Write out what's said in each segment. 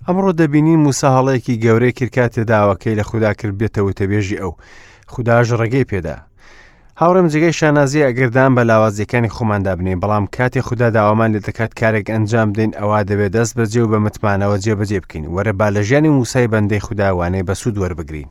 ئەمڕۆ دەبینین موسا هەڵەیەکی گەورەی کرد کاتێ داواکەی لە خودا کرد بێتە وتەبێژی ئەو. خوداش ڕێگەی پێدا. هاوڕێم جێگەی شانازیە ئەگەر دان بە لاوازیەکانی خۆماندا بنێین، بەڵام کاتێ خودا داوامان لێ دەکات کارێک ئەنجام بدەین ئەوا دەبێت دەست بەجێ و بە متمانەوە جێبەجێ بکەین. وەرە با لە ژیانی موسای بەندەی خودا وانەی بەسوود وەربگرین.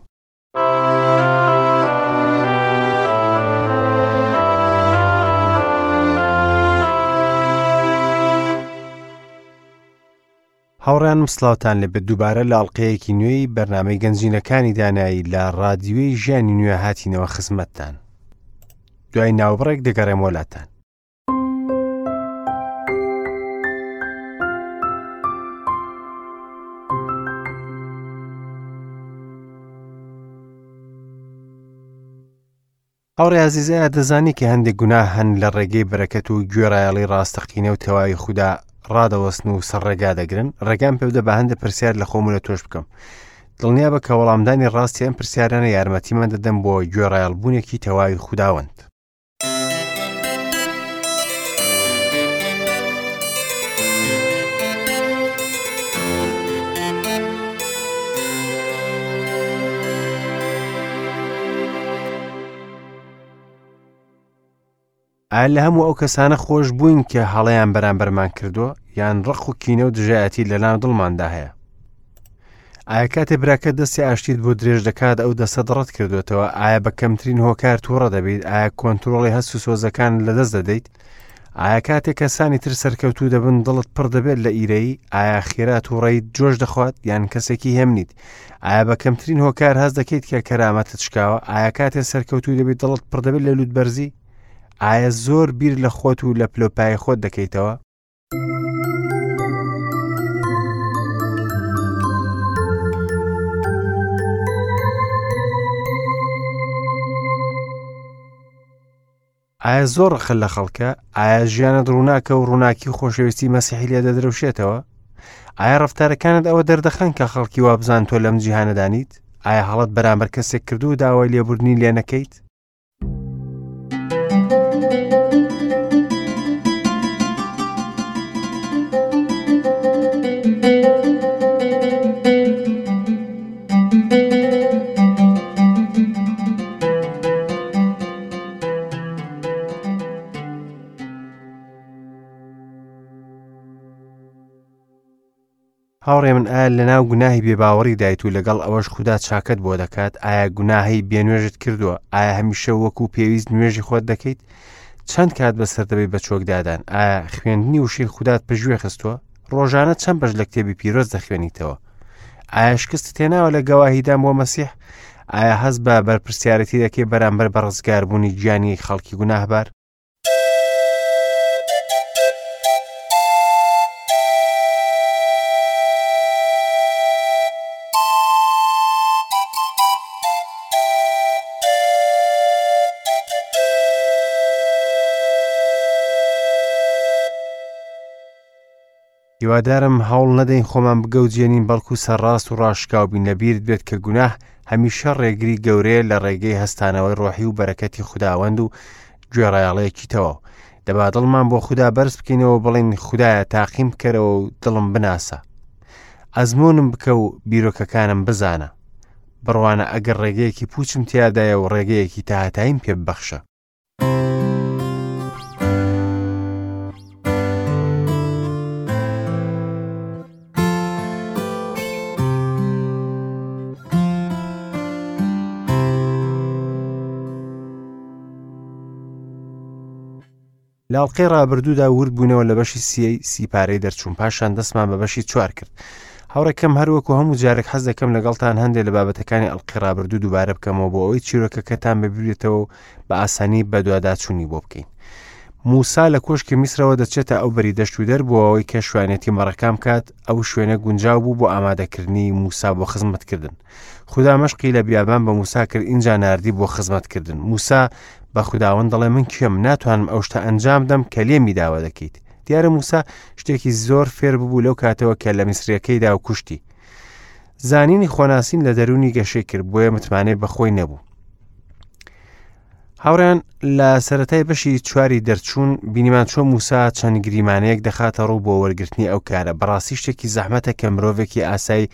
هاوڕێیانم سڵاوتان لێبێت دووبارە لە ئەڵلقەیەکی نوێی بەرنامەی گەنجینەکانی دانایی لە ڕادیوی ژیانی نوێ هاتینەوە خزمەتتان دوای ناوبڕێک دەگەڕێم وەلاتان. هاوڕێ ئازیز ئایا دەزانی کە هەندێک گوناه هەن لە ڕێگەی بەرەکەت و گوێڕایەڵی ڕاستەقینە و تەواوی خودا ڕادەوەستن و سەر ڕێگا دەگرن ڕێگام پێ بدە بە هەندێک پرسیار لە خۆم و لە تۆش بکەم دڵنیا بە کە وەڵامدانی ڕاستی ئەم پرسیارانە یارمەتیمان دەدەن بۆ گوێڕایەڵبوونێکی تەواوی خوداوەند. ئایا لە هەموو ئەو کەسانە خۆش بووین کە هەڵەیان بەرامبەرمان کردووە یان ڕق و کینە و دژایەتی لە ناو دڵماندا هەیە؟ ئایا کاتێ براکە دەستی ئاشتیت بۆ درێژ دەکات ئەو دەستەت ڕەت کردوێتەوە ئایا بە کەمترین هۆکار تووڕە دەبیت ئایا کۆنتترۆڵی هەست و سۆزەکان لەدەست دەدەیت ئایا کاتێک کەسانی تر سەرکەوتوو دەبن دڵت پڕ دەبێت لە ئیرەیی؟ ئایا خێرا تووڕەیت جۆش دەخوات یان کەسێکی هێمنیت؟ ئایا بە کەمترین هۆکار هەست دەکەیت کە کەرامەتت شکاوە؟ ئایا کاتێ سەرکەوتوو دەبیت دڵت پڕ دەبێت لە لووتبەرزی؟ ئایا زۆر بیر لە خۆت و لە پلۆپای خۆت دەکەیتەوە؟ ئایا زۆر ڕقت لە خەڵکە؟ ئایا ژیانت ڕووناکە و ڕووناکی و خۆشەویستی مەسیحی لێ دەدرەوشێتەوە؟ ئایا ڕەفتارەکانت ئەوە دەردەخەن کە خەڵکی وابزان تۆ لەم جیهانەدانیت؟ ئایا هەڵەت بەرامبەر کەسێک کردو و داوای لێبوردنی لێ نەکەیت؟ هاوڕێ من ئایا لەناو گوناهی بێباوەڕی دایت و لەگەڵ ئەوەش خودا چاکەت بۆ دەکات ئایا گوناهی بێنوێژت کردووە ئایا هەمیشە وەکو پێویست نوێژی خۆت دەکەیت چەند کات بەسەر دەبێت بە چۆکدادان ئایا خوێندنی وشەی خودات پژوێ خستووە ڕۆژانە چەند بەش لە کتێبی پیرۆز دەخوێنیتەوە ئایا شکست تێناوە لە گەواهیدان بۆ مەسیح ئایا هەست بە بەرپرسیارەتی دەکەی بەرامبەر بە ڕزگاربوونی گیانی خەڵکی گوناهبار هیوادارم هەوڵ نەدەین خۆمان بگەوجێنین بەڵکو سەرڕاست و ڕاشکاو بین لەبیرت بێت کە گوناه هەمیشە ڕێگری گەورەیە لە ڕێگەی هەستانەوەی ڕۆحی و بەرەکەتی خوداوەند و گوێڕایەڵێکی تەواو دەبا دڵمان بۆ خودا بەرز بکەینەوە بڵێین خودایە تاقیم بکەرەوە و دڵم بناسە ئەزمونم بکە و بیرۆکەکانم بزانە بڕوانە ئەگەر ڕێگەیەکی پوچم تیادایە و ڕێگەیەکی تاهتاییم پێ ببەخشە لە ئەڵقەی ڕابردوودا ورد بووینەوە لە بەشی سیەی سیپارەی دەرچوون پاشان دەستمان بە بەشی چوار کرد هاوڕێکەم هەروەکو هەموو جارێک حەز دەکەم لەگەڵتان هەندێک لە بابەتەکانی ئەڵقەی ڕابردوو دووبارە بکەمەوە بۆ ئەوەی چیرۆکەکەتان ببیرێتەوە و بە ئاسانی بەدواداچوونی بۆ بکەین موسا لە کۆشکی میسرەوە دەچێتە ئەو بەری دەشت و دەر بۆ ئەوەی کە شوانێتی مەڕەکان بکات ئەو شوێنە گونجاو بوو بۆ ئامادەکردنی موسا بۆ خزمەتکردن خودا مەشقی لە بیابان بە موسا کرد ئینجا ناردی بۆ خزمەتکردن موسا بە خوداوەند دەڵێ من کێم ناتوانم ئەو شتە ئەنجام دەم کە لێمی داوا دەکەیت دیارە موسا شتێکی زۆر فێر ببوو لەو کاتەوە کە لە میسریەکەیدا و کوشتی زانینی خۆناسین لە دەرونی گەشەی کرد بۆیە متمانەی بەخۆی نەبوو. هاوڕێیان لە سەرەتای بەشی چواری دەرچوون بینیمان چۆن موسا چەند گریمانەیەک دەخاتە ڕوو بۆ وەرگرتنی ئەو کارە بەڕاستی شتێکی زەحمەتە کە مرۆڤێکی ئاسایی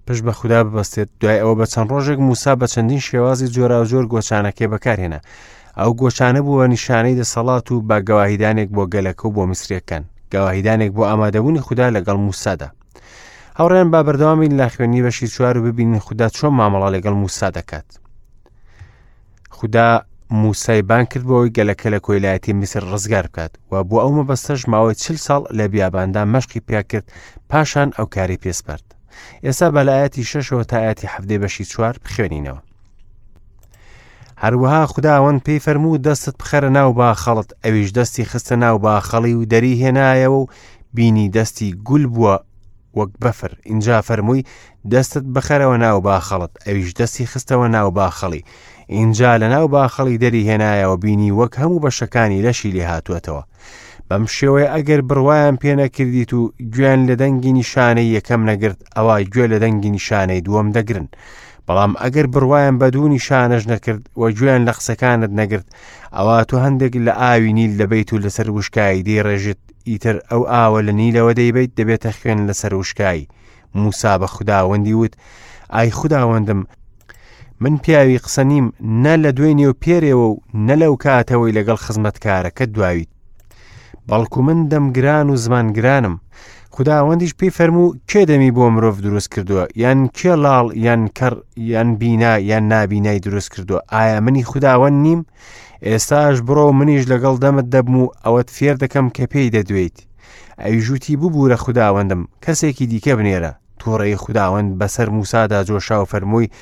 پشت بە خودا ببەستێت دوای ئەوە بە چەند ڕۆژێک موسا بە چەندین شێوازی جۆراوجۆر گۆچانەکەی بەکارهێنا ئەو گۆچانە بووە نیشانەی دەسەڵات و بە گەواهیدانێک بۆ گەلەکە و بۆ میسریەکان گەواهیدانێک بۆ ئامادەبوونی خودا لەگەڵ موسادا هاوڕێیان با بەردەوامین لە خوێندنی بەشی چوار و ببینین خودا چۆن مامەڵە لەگەڵ موسا دەکات خودا موسای بان کرد بۆ ئەوەی گەلەکە لە کۆیلایەتی میسر ڕزگار بکات و بۆ ئەو مەبەستەش ماوەی چل ساڵ لە بیاباندا مەشقی پیا کرد پاشان ئەو کاری پێسپارد ئێستا بە لە ئاەتی شەشەوە تا ئاەتی حەفتەی بەشی چوار بخوێنینەوە هەروەها خداوەند پێی فەرموو دەستت بخەرە ناو باخەڵت ئەویش دەستی خستە ناو باخەڵی و دەری هێنایەوە و بینی دەستی گول بووە وەک بەفر ئینجا فەرمووی دەستت بخەرەوە ناو باخەڵت ئەویش دەستی خستەوە ناو باخەڵی ئینجا لە ناو باخەڵی دەری هێنایەوە بینی وەک هەموو بەشەکانی لەشی لێ هاتووەتەوە بەم شێوەیە ئەگەر بڕوایان پێ نەکردیت و گوێیان لە دەنگی نیشانەی یەکەم نەگرت ئەوا گوێ لە دەنگی نیشانەی دووەم دەگرن بەڵام ئەگەر بڕوایان بە دوو نیشانەش نەکرد و گوێیان لە قسەکانت نەگرت ئەوا تۆ هەندێک لە ئاوی نیل دەبیت و لەسەر وشکایی دەیڕێژیت ئیتر ئەو ئاوە لە نیلەوە دەیبیت دەبێتە خوێن لەسەر وشکایی موسا بە خوداوەندی وت ئای خوداوەندم من پیاوی قسە نیم نە لە دوێنێ و پێرێوە و نە لەو کاتەوەی لەگەڵ خزمەتکارەکە دواویت بەڵکو من دەمگران و زمانگرانم خداوەندیش پێی فەرموو کێ دەمی بۆ مرۆڤ دروست کردووە یان کێ لاڵ یان کەڕ یان بینا یان نابینای دروست کردووە ئایا منی خداوەند نیم ئێستاش بڕۆ منیش لەگەڵ دەمت دەبم و ئەوەت فێر دەکەم کە پێی دەدوێیت ئەویش وتی ببوورە خوداوەندم کەسێکی دیکە بنێرە تووڕەیی خوداوەند بەسەر موسادا جۆشا و فەرمووی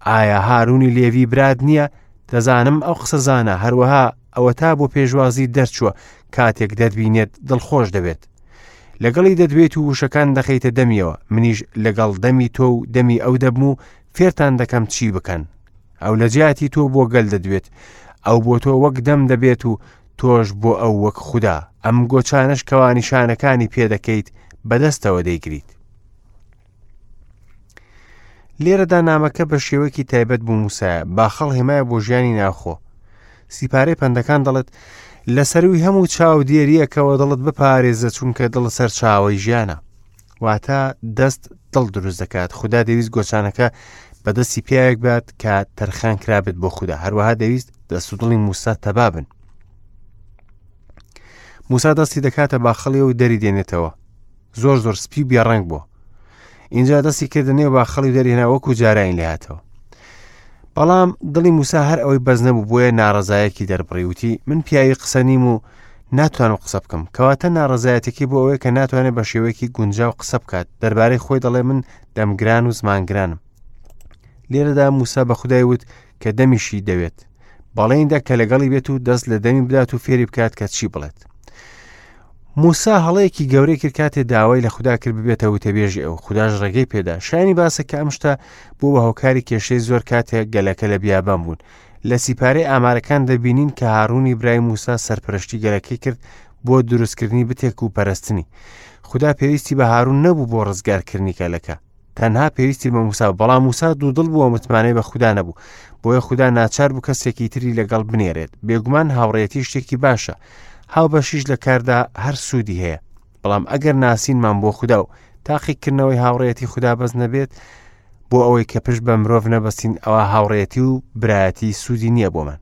ئایا هارونی لێوی برات نییە دەزانم ئەو قسەزانە هەروەها ئەوەتا بۆ پێشوازی دەرچووە کاتێک دەتبینێت دڵخۆش دەبێت لەگەڵی دەدوێت و وشەکان دەخەیتە دەمیەوە منیش لەگەڵ دەمی تۆ و دەمی ئەو دەبم و فێرتان دەکەم چی بکەن ئەو لە جیاتی تۆ بۆ گەل دەدوێت ئەو بۆ تۆ وەک دەم دەبێت و تۆش بۆ ئەو وەک خودا ئەم گۆچانەش کەوا نیشانەکانی پێدەکەیت بەدەستەوە دەیگریت لێرەدا نامەکە بە شێوەیەکی تایبەت بۆ موسایە باخەڵ هێمایە بۆ ژیانی ناوخۆ سیپارەی پەندەکان دەڵێت لە سەروی هەموو چاودێریەکەوە دڵت بپارێزە چونکە دڵ سەرچاوەی ژیانە واتە دەست دڵ دروست دەکات خودا دەویست گۆچانەکە بەدەستی پیاوێک بات کە تەرخان کرابێت بۆ خودا هەروەها دەویست دەست و دڵی موسا تەبابن موسا دەستی دەکاتە باخەڵی و دەری دێنێتەوە زۆر زۆر سپی و بێڕەنگ بووە اینجا دەستی کردە نێو باخەڵی و دەرهێنا وەکو جارانی لێهاتەوە بەڵام دڵی موسا هەر ئەوەی بەس نەبوو بۆیە ناڕەزایەکی دەربڕی وتی من پیاوی قسە نیم و ناتوانم قسە بکەم کەواتە ناڕەزایەتەکەی بۆ ئەوەیە کە ناتوانێت بە شێوەیەکی گونجاو قسە بکات دەربارەی خۆی دەڵێ من دەمگران و زمانگرانم لێرەدا موسا بە خودای وت کە دەمیشی دەوێت بەڵێندا کە لەگەڵی بێت و دەست لە دەمی بدات و فێری بکات کە چی بڵێت موسا هەڵەیەکی گەورەی کرد کاتێ داوای لە خودا کرد ببێتە وتەبێژی ئەو خوداش ڕێگەی پێدا شایانی باسە کە ئەم شتە بوو بە هۆکاری کێشەی زۆر کاتێک گەلەکە لە بیابان بوون لە سیپارەی ئامارەکان دەبینین کە هارونی برای موسا سەرپەرشتی گەلەکەی کرد بۆ دروستکردنی بتێک و پەرستنی خودا پێویستی بە هارون نەبوو بۆ ڕزگارکردنی گەلەکە تەنها پێویستی بە موسا بەڵام موسا دوودڵ بووە متمانەی بە خودا نەبوو بۆیە خودا ناچار بوو کەسێکی تری لەگەڵ بنێرێت بێگومان هاوڕێتی شتێکی باشە هاوبەشیش لە کاردا هەر سوودی هەیە بەڵام ئەگەر ناسینمان بۆ خودا و تاقیکردنەوەی هاوڕێتی خودا بەس نەبێت بۆ ئەوەی کە پشت بە مرۆڤ نەبەستین ئەوە هاوڕێتی و برایەتی سوودی نییە بۆمان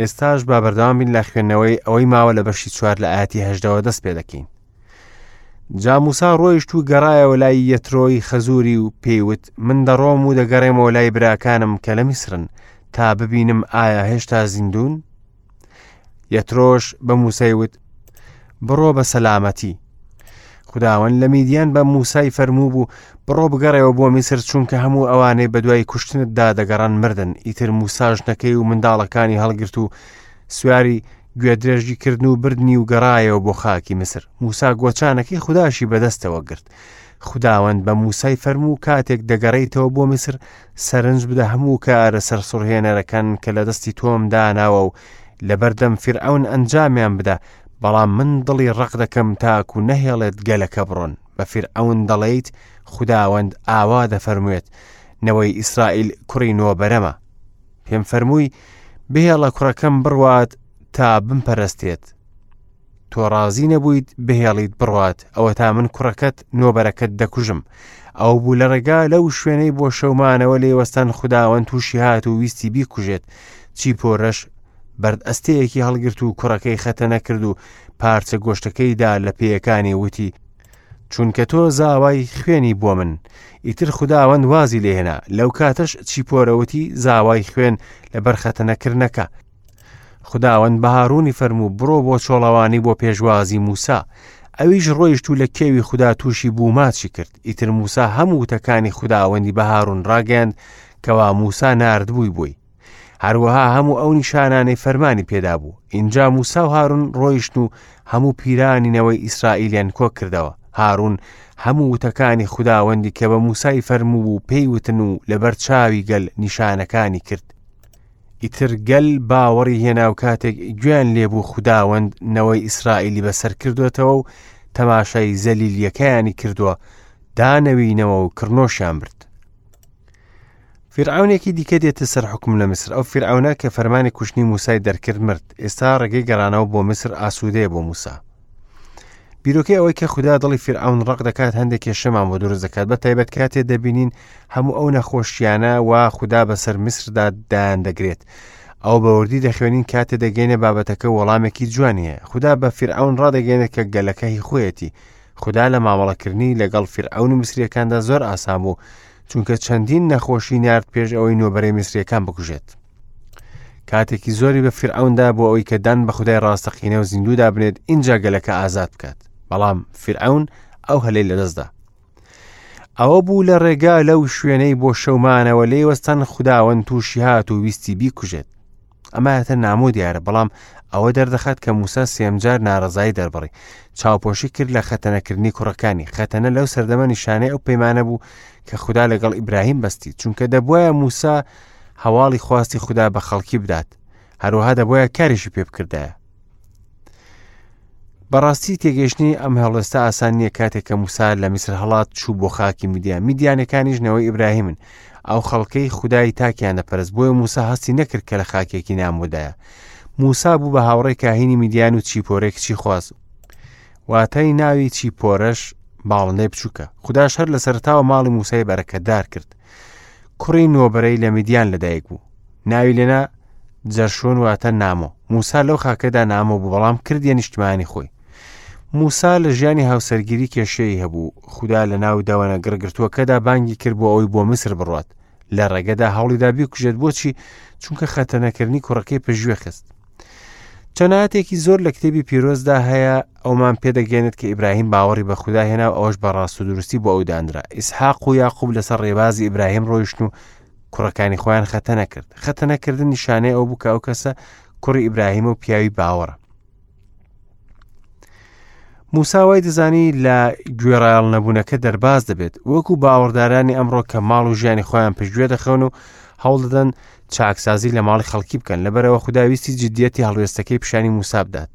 ئێستاش با بەردەوام بین لە خوێندنەوەی ئەوەی ماوە لە بەشی چوار لە ئاەتی هەشدەوە دەست پێ دەکەین جا موسا ڕۆیشت و گەڕایەوە لای یەترۆی خەزووری و پێیوت من دەڕۆم و دەگەڕێمەوە لای براکانم کە لە میسرن تا ببینم ئایا هێشتا زیندوون یەترۆش بە موسای وت بڕۆ بە سەلامەتی خداوەند لە میدیان بە موسای فەرموو بوو بڕۆ بگەڕێەوە بۆ میسر چونکە هەموو ئەوانەی بەدوای کوشتنتدا دەگەڕان مردن ئیتر موسا ژنەکەی و منداڵەکانی هەڵگرت و سواری گوێدرێژی کردن و بردنی و گەڕایەوە بۆ خاکی میسر موسا گۆچانەکەی خوداشی بەدەستەوە گرت خداوەند بە موسای فەرموو کاتێک دەگەڕێیتەوە بۆ میسر سەرنج بدە هەموو کارە سەرسوڕهێنەرەکان کە لە دەستی تۆم داناوە و لەبەردەم فیرعەون ئەنجامیان بدە، بەڵام من دڵی ڕەق دەکەم تاکو نەهێڵێت گەلەکە بڕۆن. بە فیرعەون دەڵێیت، خوداوەند ئاوا دەفەرموێت، نەوەی ئیسرائیل کوڕی نۆبەرەمە. پێم فەرمووی، بهێڵە کوڕەکەم بڕوات تا بمپەرستێت. تۆ ڕازی نەبوویت بهێڵیت بڕوات، ئەوەتا من کوڕەکەت نۆبەرەکەت دەکوژم. ئەو بوو لە ڕێگا لەو شوێنەی بۆ شەومانەوە لێوەستان خوداوەند تووشی هات و ویستی بیکوژێت. چیپۆرەش بەرد ئەستەیەکی هەڵگرت و کوڕەکەی خەتەنە کرد و پارچە گۆشتەکەی دا لە پێیەکانی وتی چونکە تۆ زاوای خوێنی بۆ من ئیتر خوداوەند وازی لێهێنا لەو کاتەش چیپۆرەوتی زاوای خوێن لەبەر خەتەنەکردنەکە خوداوەند بە هارونی فەرموو بڕۆ بۆ چۆڵەوانی بۆ پێشوازی موسا ئەویش ڕۆیشت و لە کێوی خودا تووشی بوو ماچی کرد ئیتر موسا هەموو وتەکانی خوداوەندی بە هارون ڕاگەیاند کەوا موسا ناردبووی بۆی هەروەها هەموو ئەو نیشانانەی فەرمانی پێدابوو ئینجا موسا و هارون ڕۆیشتن و هەموو پیرانی نەوەی ئیسرائیلیان کۆ کردەوە هارون هەموو وتەکانی خوداوەندی کە بە موسای فەرموو بوو پێی وتن و لەبەر چاوی گەل نیشانەکانی کرد ئیتر گەل باوەڕی هێنا و کاتێک گوێیان لێبوو خوداوەند نەوەی ئیسرائیلی بەسەر کردوێتەوە و تەماشای زەلیلیەکەیانی کردووە دانەوینەوە و کڕنۆشیان برد. فیرعەونێکی دیکە دێتە سەر حوکم لە میسر، ئەو فیرعەونە کە فەرمانی کوشتنی موسای دەرکرد مرد، ئێستا ڕێگەی گەڕانەوە بۆ میسر ئاسوودەیە بۆ موسا. بیرۆکەی ئەوەی کە خودا دڵی فیرعەون ڕەق دەکات هەندێک کێشەمان بۆ دروست دەکات بە تایبەت کاتێ دەبینین هەموو ئەو نەخۆشیانە وا خودا بەسەر میسردا دایان دەگرێت ئەو بەوردی دەخوێنین کاتێ دەگەینە بابەتەکە وەڵامێکی جوانی هەیە خودا بە فیرعەون ڕادەگەێنێت کە گەلەکە هی خۆیەتی خودا لە مامەڵەکردنی لەگەڵ فیرعەون و میسریەکاندا زۆر ئاسان بوو چونکە چەندین نەخۆشی نارد پێش ئەوەی نۆبەرەی میسریەکان بکوژێت کاتێکی زۆری بە فیرعەوندا بۆ ئەوەی کە دان بە خودای ڕاستەقینە و زیندوودا بنێت ئینجا گەلەکە ئازاد بکات بەڵام فیرعەون ئەو هەلەی لەدەستدا ئەوە بوو لە ڕێگا لەو شوێنەی بۆ شەومانەوە لێی وەستان خوداوەند تووشی هات و ویستی بیکوژێت ئەمە نامۆ دیارە بەڵام ئەوە دەردەخات کە موسا سێمجار ناڕەزایی دەربڕی چاوپۆشی کرد لە خەتەنەکردنی کوڕەکانی خەتەنە لەو سەردەمە نیشانەی ئەو پەیمانە بوو کە خودا لەگەڵ ئیبراهیم بەستی چونکە دەبواە موسا هەواڵی خواستی خودا بە خەڵکی بدات هەروەها دەبواە کاریشی پێ بکردایە بەڕاستی تێگەیشتنی ئەم هەڵوێستە ئاسان نییە کاتێک کە موسا لە میسر هەڵات چوو بۆ خاکی میدیان میدیانەکانیش نەوەی ئیبراهیمن ئەو خەڵکەی خودای تاکیان دەپەرست بۆیە موسا هەستی نەکرد کە لە خاکێکی نامۆدایە موسا بوو بە هاوڕێی کاهینی میدیان و چیپۆرەی کچی خواست واتای ناوی چیپۆرەش باڵندەی بچووکە خوداش هەر لە سەرتاوە ماڵی موسای بەرەکەتدار کرد کوڕی نۆبەرەی لە میدیان لەدایک بوو ناوی لێنا جەرشۆن واتە نامۆ موسا لەو خاکەدا نامۆ بوو بەڵام کردیە نیشتمانی خۆی موسا لە ژیانی هاوسەرگیری کێشەی هەبوو خودا لە ناو دەوەنە گڕگرتووەکەدا بانگی کرد بۆ ئەوەی بۆ میسر بڕات لە ڕێگەدا هەوڵیدا بیکوژێت بۆچی چونکە خەتەنەکردنی کوڕەکەی پشتگوێ خست چەناتێکی زۆر لە کتێبی پیرۆزدا هەیە ئەومان پێدەگەێنێت کە ئیبراهیم باوەڕی بە خودا هێنا و ئەوەش بە ڕاست و دروستی بۆ ئەو دانرا ئیسحاق و یاقوب لەسەر ڕێبازی ئیبراهیم ڕۆیشتن و کوڕەکانی خۆیان خەتەنە کرد خەتەنەکردن نیشانەی ئەو بوو کە ئەو کەسە کوڕی ئیبراهیمە و پیاوی باوەڕە موسا وای دەزانی لە گوێڕایەڵ نەبوونەکە دەرباز دەبێت وەکو باوەڕدارانی ئەمڕۆ کە ماڵ و ژیانی خۆیان پشتگوێ دەخەون و هەوڵ دەدەن چاکسازی لە ماڵی خەڵکی بکەن لەبەرەوە خوداویستی جددیەتی هەڵوێستەکەی پیشانی موسا بدات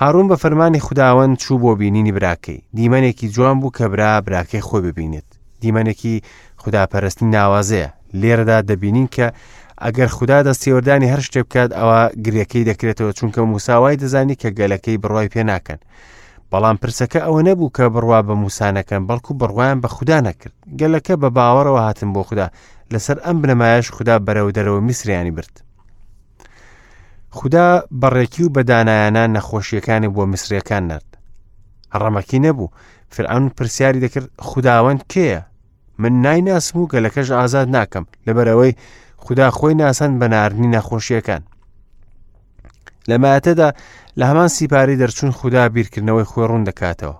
هارون بە فەرمانی خوداوەند چوو بۆ بینینی براکەی دیمەنێکی جوان بوو کە برا براکەی خۆی ببینێت دیمەنێکی خوداپەرستی ناوازەیە لێرەدا دەبینین کە ئەگەر خودا دەستێوەردانی هەر شتێک بکات ئەوە گرێکەی دەکرێتەوە چونکە موسا وای دەزانی کە گەلەکەی بڕوای پێ ناکەن بەڵام پرسەکە ئەوە نەبوو کە بڕوا بە موسا نەکەن بەڵکو بڕوایان بە خودا نەکرد گەلەکە بە باوەڕەوە هاتن بۆ خودا لەسەر ئەم بنەمایەش خودا بەرەو دەرەوە میسریانی برد خودا بەڕێکی و بەدانایانە نەخۆشیەکانی بۆ میسریەکان نرد ڕەمەکی نەبوو فرعون پرسیاری دەکرد خوداوەند کێیە من نایناسم و گەلەکەش ئازاد ناکەم لەبەرئەوەی خودا خۆی ناساند بە ناردنی نەخۆشیەکان لە ماتەدا لە هەمان سیپاری دەرچوون خودا بیرکردنەوەی خۆی ڕوون دەکاتەوە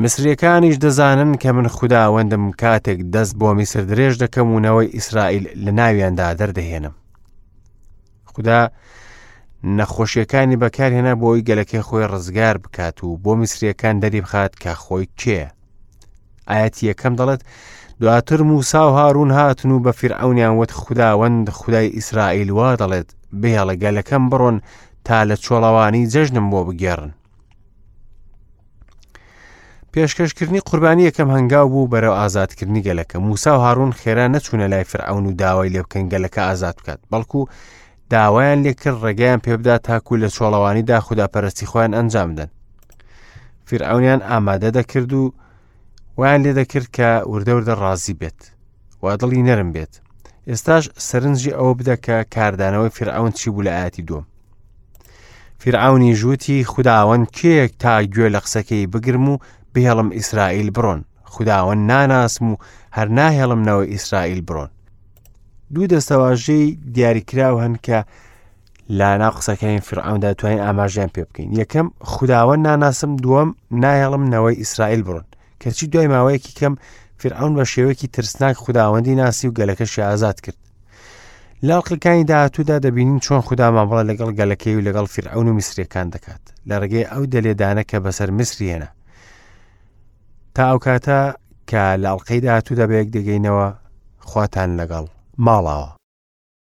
میسریەکانیش دەزانن کە من خوداوەندم کاتێک دەست بۆ میسر درێژ دەکەم و نەوەی ئیسرائیل لە ناویاندا دەردەهێنم خودا نەخۆشیەکانی بەکارهێنا بۆ ئەوی گەلەکەی خۆی ڕزگار بکات و بۆ میسریەکان دەری بخات کە خۆی کێ ئاەتی یەکەم دەڵێت دواتر موسا و هارون هاتن و بە فیرعەونیان وت خوداوەند خودای ئیسرائیل وا دەڵێت بهێڵە گەلەکەم بڕۆن تا لە چۆڵەوانی جەژنم بۆ بگێڕن. پێشکەشکردنی قوربانی یەکەم هەنگاو بوو بەرەو ئازادکردنی گەلەکە. موسا و هاڕون خێرا نەچوونە لای فرعەون و داوای لێ بکەن گەلەکە ئازاد بکات، بەڵکو داوایان لێکرد ڕێگەیان پێبدات تاکو لە چۆڵەوانیدا خوداپەرستی خۆیان ئەنجام بدەن. فیرعەونیان ئامادە دەکرد و وایان لێ دەکرد کە وردە وردە ڕازی بێت و دڵی نەرم بێت. ئێستاش سەرنجی ئەوە بدە کە کاردانەوەی فیرعەون چی بوو لە ئاەتی دووەم. فیرعەونیش وتی، خوداوەند کێیە تا گوێ لە قسەکەی بگرم و بهێڵم ئیسرائیل بڕۆن؟ خوداوەند ناناسم و هەر ناهێڵم نەوەی ئیسرائیل بڕۆن. دوو دەستەواژەی دیاریکراو هەن کە لە ناو قسەکانی فرعوندا توانین ئاماژیان پێ بکەین یەکەم خوداوەند ناناسم دووەم نایەڵم نەوەی ئیسرائیل بڕۆن کەچی دوای ماوەیەکی کەم فرعون بە شێوەیەکی ترسناک خوداوەندی ناسی و گەلەکەشی ئازاد کرد لە ئەڵقەکانی داهاتوودا دەبینین چۆن خودا مامەڵە لەگەڵ گەلەکەی و لەگەڵ فیرعەون و میسریەکان دەکات لە ڕێگەی ئەو دەلێدانە کە بەسەر میسری هێنا تا ئەو کاتە کە لە ئەڵلقەی داهاتوودا بەیەک دەگەینەوە خواتان لەگەڵ ماڵاوە.